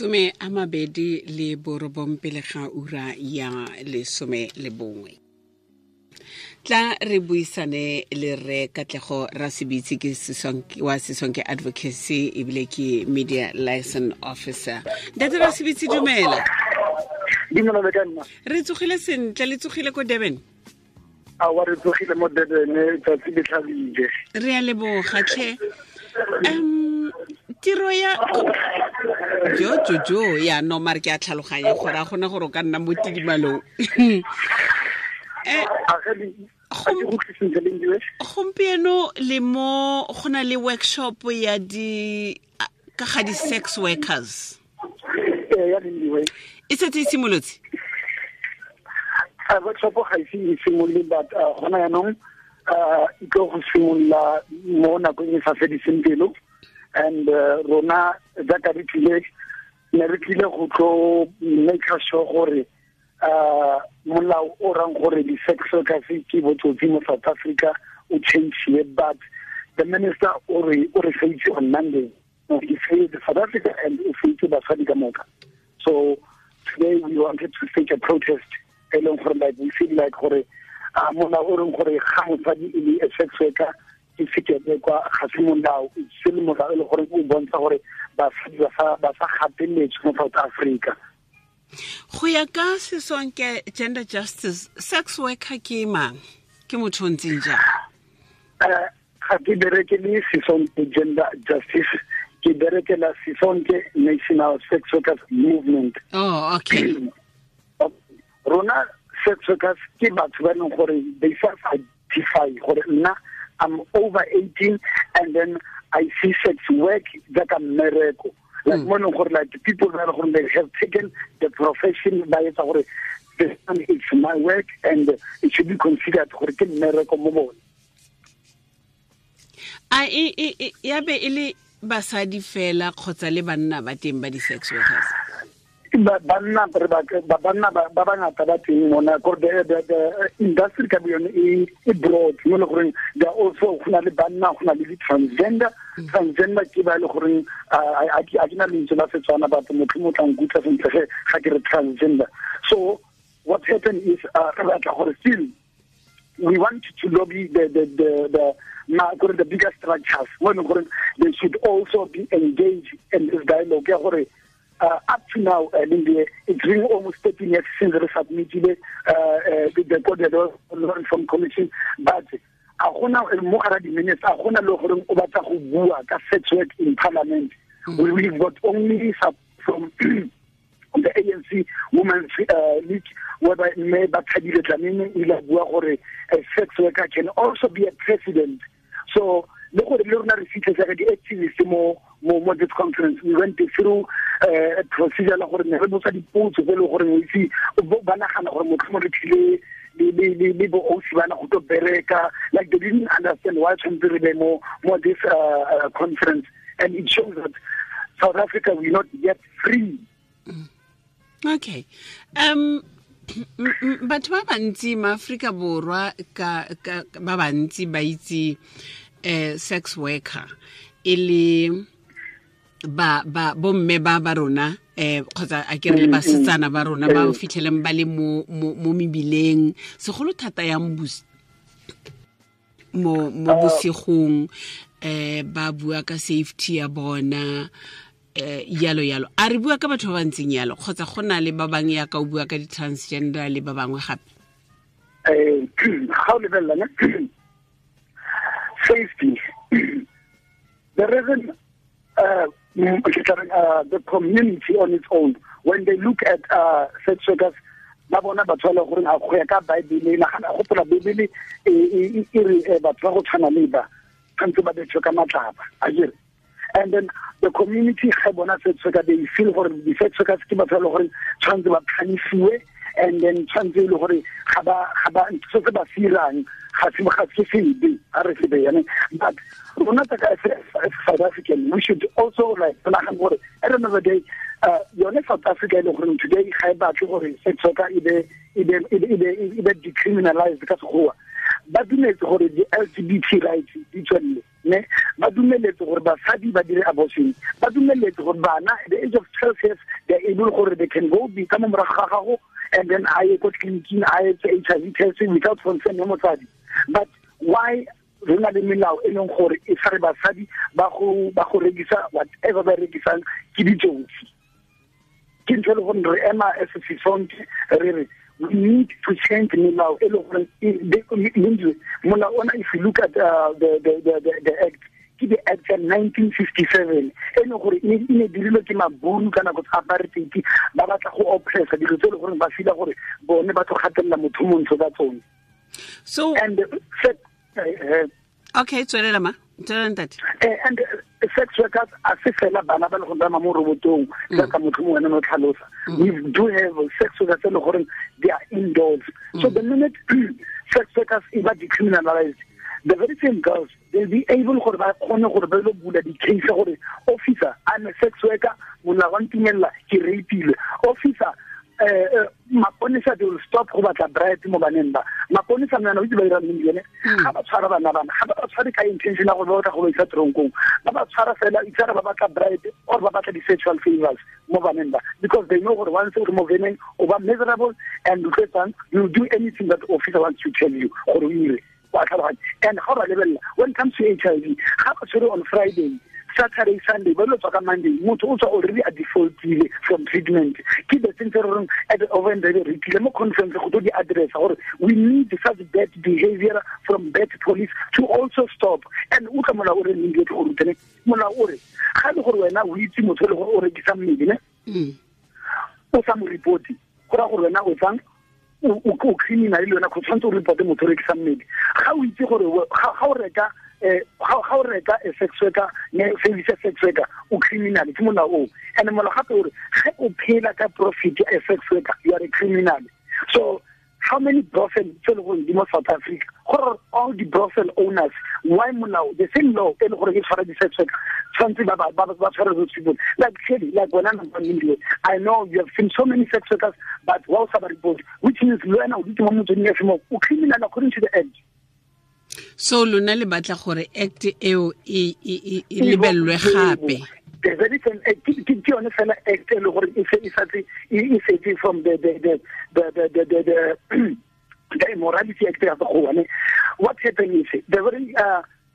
29 pele ga ura ya 11. Tla re buisane le re Katlego Rasebitse, ke wa Sisonke Advocacy ebile ke media liaison officer. Ntate Rasebitse, dumela. Dumela le ka nna. Re tsogile sentle, le tsogile ko Durban? A wa, re tsogile mo Durban, tsatsi le tlhabile. Re a leboga tlhe. Tiro ya jo jo jo ya no mare ke a tlhaloganya gore a gona gore o ka nna mo tidimalong. Gompieno le mo go na le workshop ya di ka ga di sex workers. E setse e simolotse? Workshop ga ise e simolole, but gona yaanong e tlo go simolola mo nakong e sa fediseng pelo. And rona jaaka re tlile, ne re tlile go tlo make sure gore molao o rang gore di-sex workers ke botsotsi mo South Africa o change, but the minister o re faitse on Monday. He failed South Africa and o faitse basadi ka moka. So today we wanted to stage a protest e leng gore, like, we feel like gore molao o reng gore ga mosadi e le a sex worker ke sekebekwa ga se molao, se le molao e le gore o bontsha gore basadi ba sa gateletswe mo South Africa. Go ya ka Sisonke Gender Justice, sex worker ke mang? Ke motho o ntseng jang? Ga ke bereke le Sisonke Gender Justice, ke berekela Sisonke National Sex Workers Movement. Oh, okay. Rona sex workers ke batho ba e leng gore they self identify gore nna I'm over 18 and then I see sex work jaaka mmereko, like mo e leng gore, like, people ba e leng gore they have taken the profession, ba etsa gore this one, it's my work and it should be considered gore ke mmereko mo bone. A e ya be e le basadi fela kgotsa le banna ba teng ba di-sex workers? Banna re ba banna ba bangata ba teng mona, gore the industry ka yone e broad mo le goreng there are also, go na le banna, go na le di-transgender. Transgender ke ba e le goreng a ke na lentswe la Setswana, batho motho mo tla nkutlwa sentle ge ga ke re transgender. So what happened is re batla gore still we want to lobby the ma gore the bigger structures mo e leng gore they should also be engaged in this dialogue ya gore up to now, Lindy, it's been almost 13 years since we submitted the Code Law Reform Commission, but a gona mo gara di-minutes, a gona le gore o batla go bua ka sex work in parliament. We've got only from the ANC Women's League, whereby Mme Bathabile Dlamini o ile a bua gore a sex worker can also be a president. So le gore le rona re fitlhe jaaka di-activist mo this conference, we went through a procedure la gore ne re botsa dipotso tse e leng gore o itse ba nagana gore motho mo re tlile le bo osi bana go tlo bereka. Like, they didn't understand why tshwanetse re be mo this conference, and it shows that South Africa, we're not yet free. Okay, batho ba bantsi maaforika Borwa ka ba bantsi ba itse sex worker e le ba bomme ba rona kgotsa a ke re le basetsana ba rona ba fitlheleng ba le mo mebileng, segolo thata yang mo bosigong, ba bua ka safety ya bona, yalo yalo. A re bua ka batho ba ba ntseng yalo kgotsa go na le ba bangwe ya ka o bua ka di-transgender le ba bangwe gape? Ga o lebelela ne safety, the reason the community on its own, when they look at sex workers, ba bona batho ba le gore a go ya ka Bible, nagana gopola Bible e re batho ba go tshwana le ba tshwanetse ba betswe ka matlapa a jere. And then the community ga bona sex worker, they feel gore di-sex workers ke batho ba le gore tshwanetse ba phanisiwe, and then tshwanetse e le gore ga ba se se ba firang ga se sebe, a re sebe yane. But rona tsa as South African, we should also, like, nagana gore at the end of the day, yone South Africa e le gore today ga e batle gore sex worker e be decriminalized ka Sekgowa, ba dumetse gore di-LGBT rights di tswelele. Ne ba dumeletse gore basadi ba dire abortion, ba dumeletse gore bana at the age of 12 years they are able gore they can go be ka mo morago ga gago and then a ye ko tleliniking a etse HIV test without consent ya motsadi. But why re na le melao e leng gore e tshware basadi ba go rekisa whatever ba rekisang ke ditsotsi? Ke ntho e le gore re ema as Sisonke re re we need to change melao e le gore molao ona, if you look at the act, ke the act ya 1957 e leng gore e ne dirilwe ke maburu ka nako tsa apartheid, ba batla go oppressa dilo tse e le gore ba feel gore bone ba tlo gatelela motho montsho ka tsone. So and okay, tswelela ma, tswelela ntate. And sex workers a se fela bana ba le go tsamaya mo robotong jaaka motho mongwe no tlhalosa. We do have sex workers e le gore they are indoors. So the minute sex workers e ba decriminalized, the very same girls, they'll be able gore ba kgone gore ba lo bula di-case gore officer, I'm a sex worker, molao wa ntumella ke rapeilwe. Officer, maponesa, they will stop go batla bribe mo baneng ba. Maponesa mna o itse ba dira eng yone? Ga ba tshwara bana bana, ga ba tshware ka intention ya gore ba batla go ba isa tronkong, ba ba tshwara fela itse ba batla bribe or ba batla di-sexual favors mo baneng ba, because they know gore once o re mo veneng o ba miserable and you will do anything that the officer wants to tell you gore o ire. And ga ba lebelela when it comes to HIV, ga ba tshwere on Friday, Saturday, Sunday, ba lo tswa ka Monday, motho o tswa already a defaultile from treatment. Ke the thing tse re reng at the over and re tlile mo conference go tlo di address gore we need such bad behavior from bad police to also stop. And utlwa molao o re neng ke go rutene, molao o re ga le gore wena o itse motho le gore o rekisa mmele ne, o sa mo report, go ra gore wena o tsang o criminal le wena, go tshwanetse o report motho o rekisa mmele. Ga o itse gore ga o reka ga o reka a sex worker, ne service sex worker, o criminal, ke molao o. And molao gape o re ge o phela ka profit ya sex worker, you are a criminal. So how many brothel tse le gore di mo South Africa, gore all the brothel owners, why molao the same law e le gore e tshwara di-sex worker, tshwanetse ba tshware those people? Like clearly, like wena number one, I know you have seen so many sex workers, but wa o sa ba report, which means le wena o dutse mo motsweding FM, o criminal according to the act. So lona le batla gore act eo e lebellwe gape. The very same act, ke yone fela act e le gore e setse from the Immorality Act ya Sekgowa. What happened is the very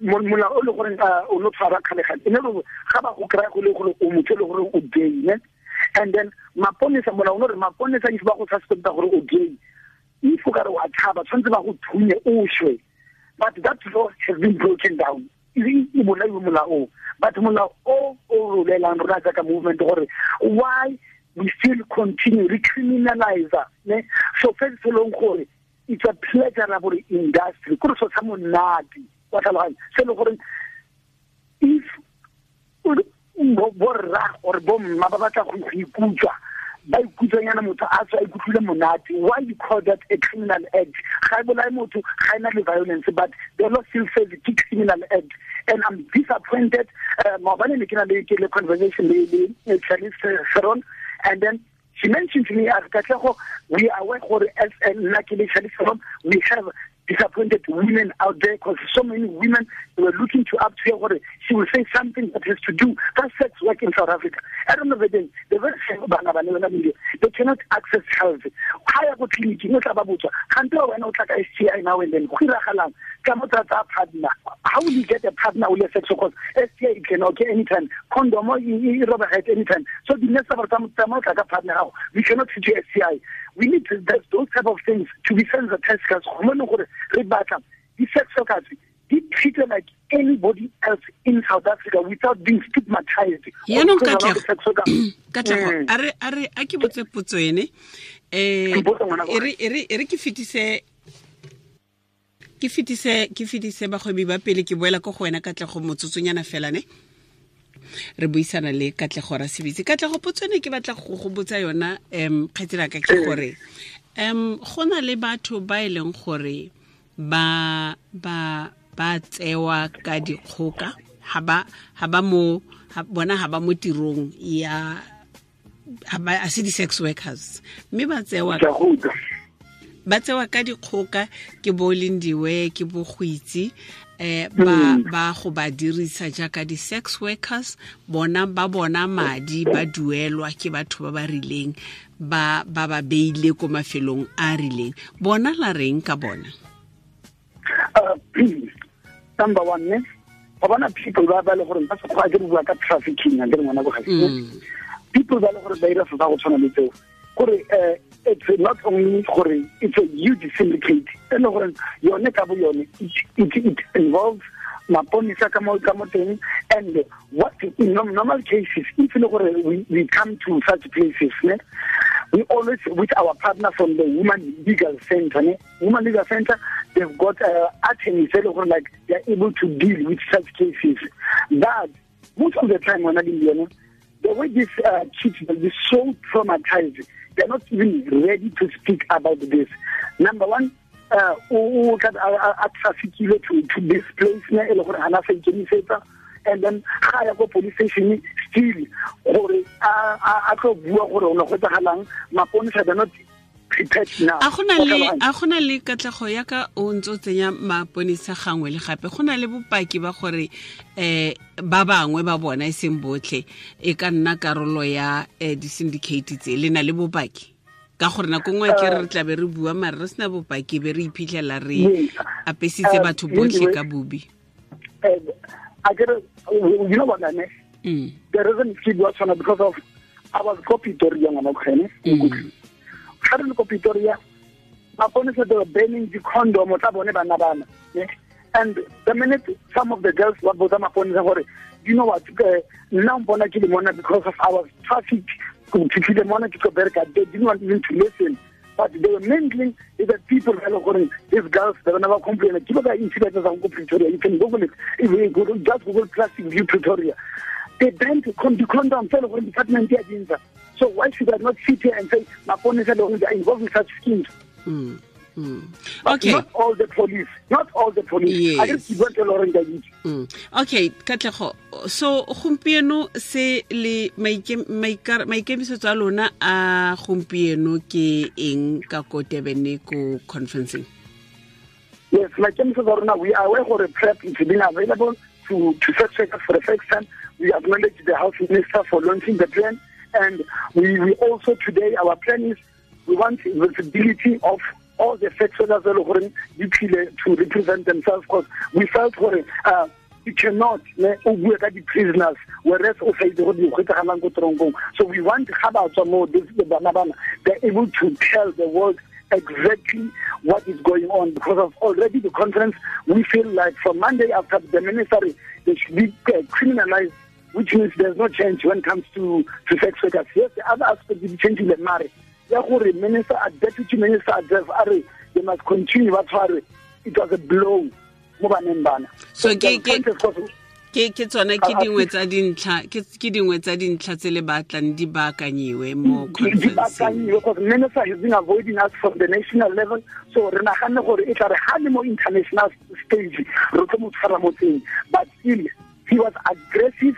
molao o le gore o no tshwara kgale-kgale, e ne le ga ba go kry-a go le gore o motho e le gore o gay, ne? And then maponesa, molao o no re maponesa if ba go suspecta gore o gay, if o ka re wa tshaba, tshwanetse ba go thunye o shwe. But that law has been broken down. But molao o o rolelang rona jaaka movement gore why we still continue recriminalize, ne? So first long gore it's a pleasurable industry. Kore so sa monate, wa tlhaloganya? Se le gore if borra or bomma ba batla go ikutlwa, ba ikutlwanyana motho a tswa a ikutlwile monate, why you call that a criminal act? Ga e bolaye motho, ga e na le violence, but the law still says it's a criminal act. And I'm disappointed. Maobane ne ke na le conversation le Charlize Theron, and then she mentioned to me, Katlego, we are aware gore as nna ke le Charlize Theron, we have disappointed women out there, because so many women were looking to up to her gore she will say something that has to do that sex work in South Africa. I don't know the very same bana ba ne ba they cannot access health. Ha ya go clinic no tla ba botswa kgante wena o tla ka STI now and then go iragalang ka mo tsa partner. How will you get a partner with a sex worker? STI it can occur anytime, condom e roba at anytime. So the next time tsa tla ka partner gago, we cannot treat you STI. We need to, those type of things to be sensitized, because gore re batla di-sex workers di treated like anybody else in South Africa without being stigmatized. Yaanong Katlego, a re a ke botse potso ene, e re ke fetise bagwebi ba pele, ke boela ko go wena Katlego motsotsonyana fela ne re buisana le Katlego Rasebitse. Katlego, potso ene ke batla go botsa yona kgaitselaka ke gore go na le batho ba e leng gore ba tsewa ka dikgoka, ha ba mo bona ha ba mo tirong ya ha ba a se di-sex workers, mme ba tsewa ka dikgoka ke bo Lindiwe, ke bo Goitse, Ba ba go ba dirisa jaaka di-sex workers, bona ba bona madi, ba duelwa ke batho ba ba rileng, ba ba ba beile ko mafelong a a rileng. Bona la reng ka bona? Number one, ne ba bona people ba ba le gore ba se kgwa ke bua ka trafficking, a ke ngwana go ga people ba le gore ba ira se go tshwana le tseo, gore it's not only gore it's a huge syndicate e le gore yone ka bo yone it involves maponisa ka mo teng. And what in normal cases, if le gore we come to such places, ne, we always with our partner from the Women Legal Center, ne, Women Legal Center, they've got attorneys e le gore like they're able to deal with such cases. But most of the time when I the way these kids will be so traumatized, they're not even ready to speak about this. Number one, o a traffickile to this place, ne, e le gore hana sa ikemisetsa, and then ga ya ko police station still gore a tlo bua gore o ne go tsagalang, maponisa they're not prepared now. A gona le katlego ya ka o ntse o tsenya maponisa gangwe le gape, go na le bopaki ba gore ba bangwe ba bona e seng botlhe e ka nna karolo ya di-syndicate tse, le na le bopaki? Ka gore nako nngwe ke re tla be re bua mare re sena bopaki, be re iphitlhela re apesitse batho botlhe ka bobi. You know what I mean? The reason ke bua tshwana because of I was ko Pretoria ngwana kgene. Ga re le ko Pretoria, maponisa they were banning the condom tsa bone bana bana. And the minute some of the girls ba botsa maponisa gore, you know what, nna mpona ke le mona because of our traffic, ke fitlhile mona ke tlo bereka, they didn't want even to listen. But they were mingling with the people, these girls, they were never complaining. Keep the incidents of Pretoria. You can Google it. If you go, just Google Plastic View Pretoria. They banned the condom department. So why should I not sit here and say, Maponisa are involved in such schemes? Okay. Not all the police. Not all the police. Yes. I just want to learn that. Okay, Katlego. So gompieno se le maikemisetso a lona a gompieno ke eng ka ko Durban ko conferencing? Yes, maikemisetso a rona, we are aware gore PrEP is being available to sex workers for the first time. We acknowledge the Health Minister for launching the plan, and we also today our plan is we want visibility of all the sex workers to represent themselves, because we felt gore you cannot bua ka di-prisoners whereas o sa itse gore di kgwetsagalang ko toronkong. So we want ga ba tswa mo bana bana, they're able to tell the world exactly what is going on, because of already the conference we feel like from Monday after the ministry they should be criminalized, which means there's no change when it comes to sex workers. Yes, the other aspect is changing the marriage. Ya gore minister, deputy minister address are they must continue ba tshware. It was a blow mo baneng bana. So ke tsona ke dingwe tsa dintlha, ke dingwe tsa dintlha tse le batlang di baakanyiwe mo conference. Di baakanyiwe because minister has been avoiding us from the national level. So re naganne gore e tla re ha le mo international stage re tlo mo tshwara mo teng, but still he was aggressive.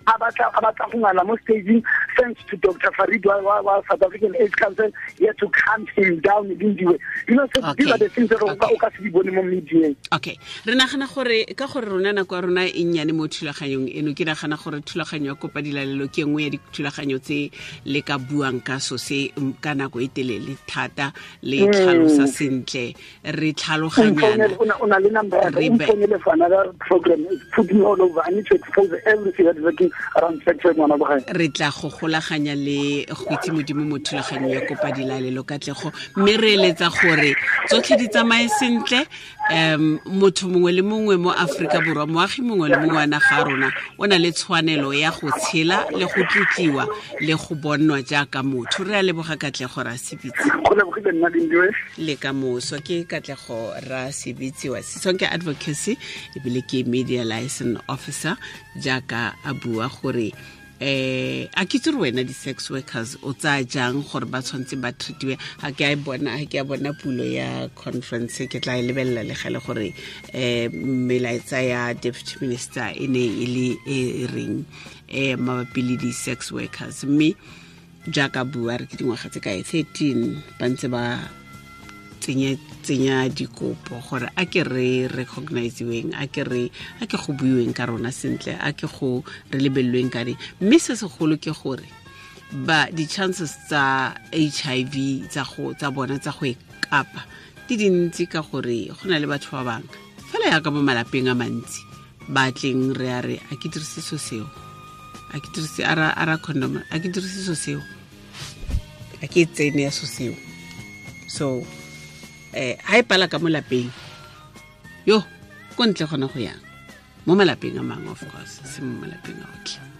A batla go ngala mo staging, thanks to Dr. Farid wa South African AIDS Council, he had to calm him down in the way. You know, so these are the things that o ka se di bone mo media. Okay. Re nagana gore ka gore rona nako ya rona e nnyane mo thulaganyong eno, ke nagana gore thulaganyo ya kopa dilalelo ke nngwe ya dithulaganyo tse le ka buang ka so se ka nako e telele thata, le tlhalosa sentle, re tlhaloganyana. O na le number ya ka, o mfounele for another program. It's put me all over. I need to expose everything that is working around sex work ngwana bogae. Re tla go golaganya le go itse Modimo mo thulaganyong ya kopa dilalelo, Katlego, mme re eletsa gore tsotlhe di tsamaye sentle. Motho mongwe le mongwe mo Afrika Borwa, moagi mongwe le mongwe wa naga ya rona o na le tshwanelo ya go tshela le go tlotliwa le go bonwa jaaka motho. Re a leboga Katlego Rasebitse. Go lebogile nna Lindiwe. Le ka moso. Ke Katlego Rasebitse wa Sisonke Advocacy, ebile ke media liaison officer, jaaka a bua gore a ke itse gore wena di-sex workers o tsaya jang gore ba tshwanetse ba treatiwe. Ga ke a bona, ga ke a bona pulo ya conference, ke tla e lebelela le gale gore melaetsa ya deputy minister e ne e le e reng mabapi le di-sex workers. Mme jaaka bua re ke dingwaga tse kae, 13 ba ntse ba tsenya dikopo gore a ke re recognizeweng, a ke re a ke go buiweng ka rona sentle, a ke go re lebelelweng ka eng. Mme se segolo ke gore ba di-chances tsa HIV tsa go tsa bona tsa go e kapa di dintsi, ka gore go na le batho ba bangwe fela yaka mo malapeng a mantsi ba tleng re a re a ke dirise so seo, a ke dirise ara condom, a ke dirise so seo, a ke tsene ya so seo. So ha e pala ka mo lapeng yo ko ntle gona go yang mo malapeng a mangwe, of course se mo malapeng a otlhe.